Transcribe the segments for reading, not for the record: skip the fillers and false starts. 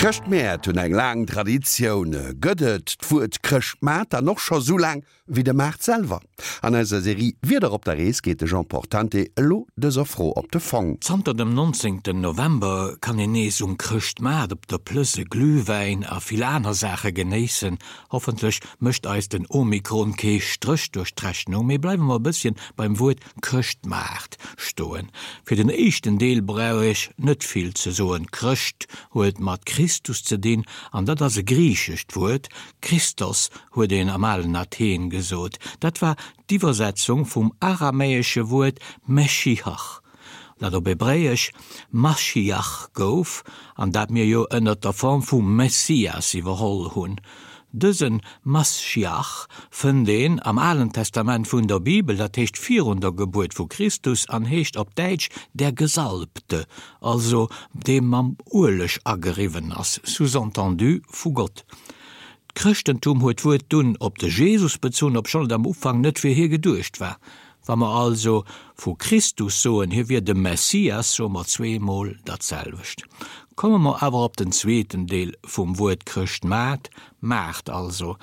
D'Chrëschtmäert hunn eng laang Traditioun. Gëtt et d'Wuert Chrëschtmaart dann och scho sou laang wéi de Maart selwer? An eiser Serie Wieder op der Rees geet de Jean Portante elo dëser Fro op de Fong. Zanter dem 19 November kann een nees um Chrëschtmaart op der Plëss e Glühwäin a vill aner Saache genéissen. Hoffentlech mécht eis den Omikron kee Stréch duerch d'Rechnung, mee bleiwe mer e bësschen beim Wuert Chrëschtmaart stoen. Fir den éischten Deel brauch ech net vill ze soen. Chrëscht huet mat Christus ze dinn, an dat ass e griichescht Wuert. Christos huet een am alen Athen gesot. Dat war d'Iwwersetzung vum aramäesche Wuert Meschiach, dat op Hebräesch Maschiach gouf, an dat mir jo ënnert der Form vu Messias iwwerholl hunn. Dëse Maschiach fënnt een am Alen Testament vun der Bibel, dat heescht virun der Gebuert vu Christus, an heescht op Däitsch der Gesalbte, also dee mam Ueleg ageriwwen ass, sous-entendu vu Gott. D'Chrëschtentum huet d'Wuert dunn op de Jesus bezunn, obschonn et am Ufank net fir hie geduecht war. Wa mer also vu Christus soen, hie wier de Messias, soe mer zweemol dat selwecht. Komme mer awer op den zweeten Deel vum Wuert Chrëschtmaart, Maart also.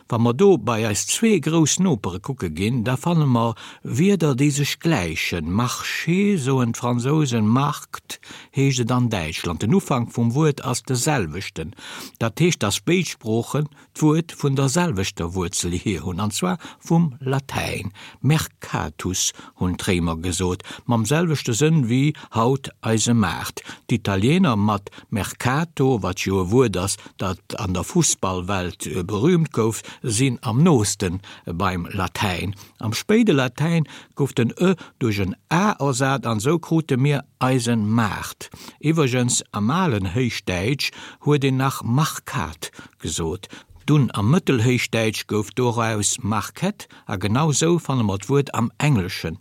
Wa mer do bei eis zwee grouss Nopere kucke ginn, da fanne mer Wierder, déi sech gläichen, Marché soen d'Fransousen, Markt heescht et an Däitschland. Den Ufank vum Wuert ass de selwechten. Dat heescht, dass béid Sproochen d'Wuert vun der selwechter Wuerzel hier hunn, an zwar vum Latäin, mercatus hunn d'Réimer gesot, mam selwechte Sënn wéi haut eise Maart. D'Italiener mat mercato, wat jo e Wuert ass, dat an der Fussballwelt berüümt gouf, sinn am nooste beim Latäin. Am spéide Latäin gouf den e duerch en a ersat an esou krute mir eisen Maart. Iwwergens, am alen Héichdäitsch huet een nach marcat gesot. Dunn am Mëttelhéichdäitsch gouf doraus market a genau sou fanne mer d'Wuert am Engleschen.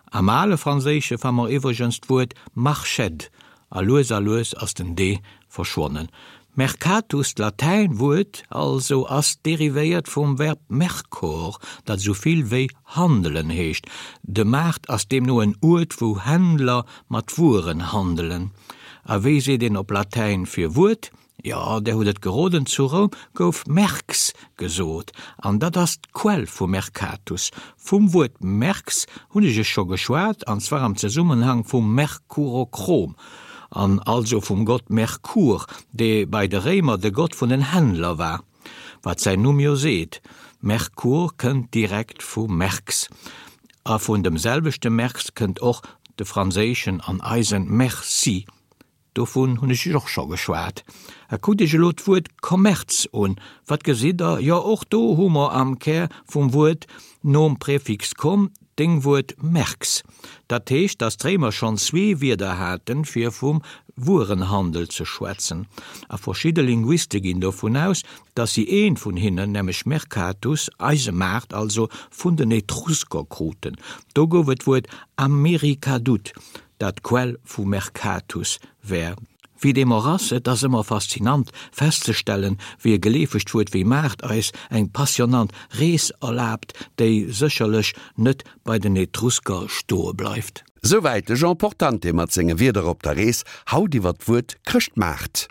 Am ale Franséische fa mer iwwregens d'Wuert marched a lues a lues ass den d verschwonnen. Mercatus, d'Latäin Wuert also, ass derivéiert vum Verb mercor, dat esou vill wéi handelen heescht. De Maart ass deemno en Uert wou Händler mat Wueren handelen. A wéi seet een op Latäin fir Wuert? Jo, där hutt et geroden, zu Roum gouf merx gesot, an dat ass d'Quell vu mercatus. Vum Wuert merx hunn ech iech scho geschwat, an zwar am Zesummenhang vum Merkurochrom, an also vum Gott Merkur, dee bei de Réimer de Gott vun den Händler war, wat säin Numm jo seet, Merkur kënnt direkt vu merx, a vun dem selwechte merx kënnt och de franséischen an eisen merci. Dovun hunn ech iech och scho geschwat. A kuckt iech elo d'Wuert Kommerz un. Wat gesitt der? Jo, och do hu mer am Kär vum Wuert nom Präfix kom d'Déngwuert merx. Dat heescht, datt d'Réimer schonn zwee Wierder haten, fir vum Wuerenhandel ze schwätzen. A verschidde Linguiste ginn dovun aus, datt si eent vun hinnen, nämlech mercatus, eise Maart also, vun den Etrusker kruten. Do gouf et d'Wuert americadut. dat d'Quell vu Mercatus wär. Wéi deem och ass, et ass ëmmer faszinant festzestellen, wéi e geleefegt Wuert wéi Maart eis eng passionant Rees erlaabt, déi sécherlech net bei den Etrusker stoe bleift. Souwäit de Jean Portante mat senge Wierder op der Rees, haut iwwer d'Wuert Chrëschtmaart.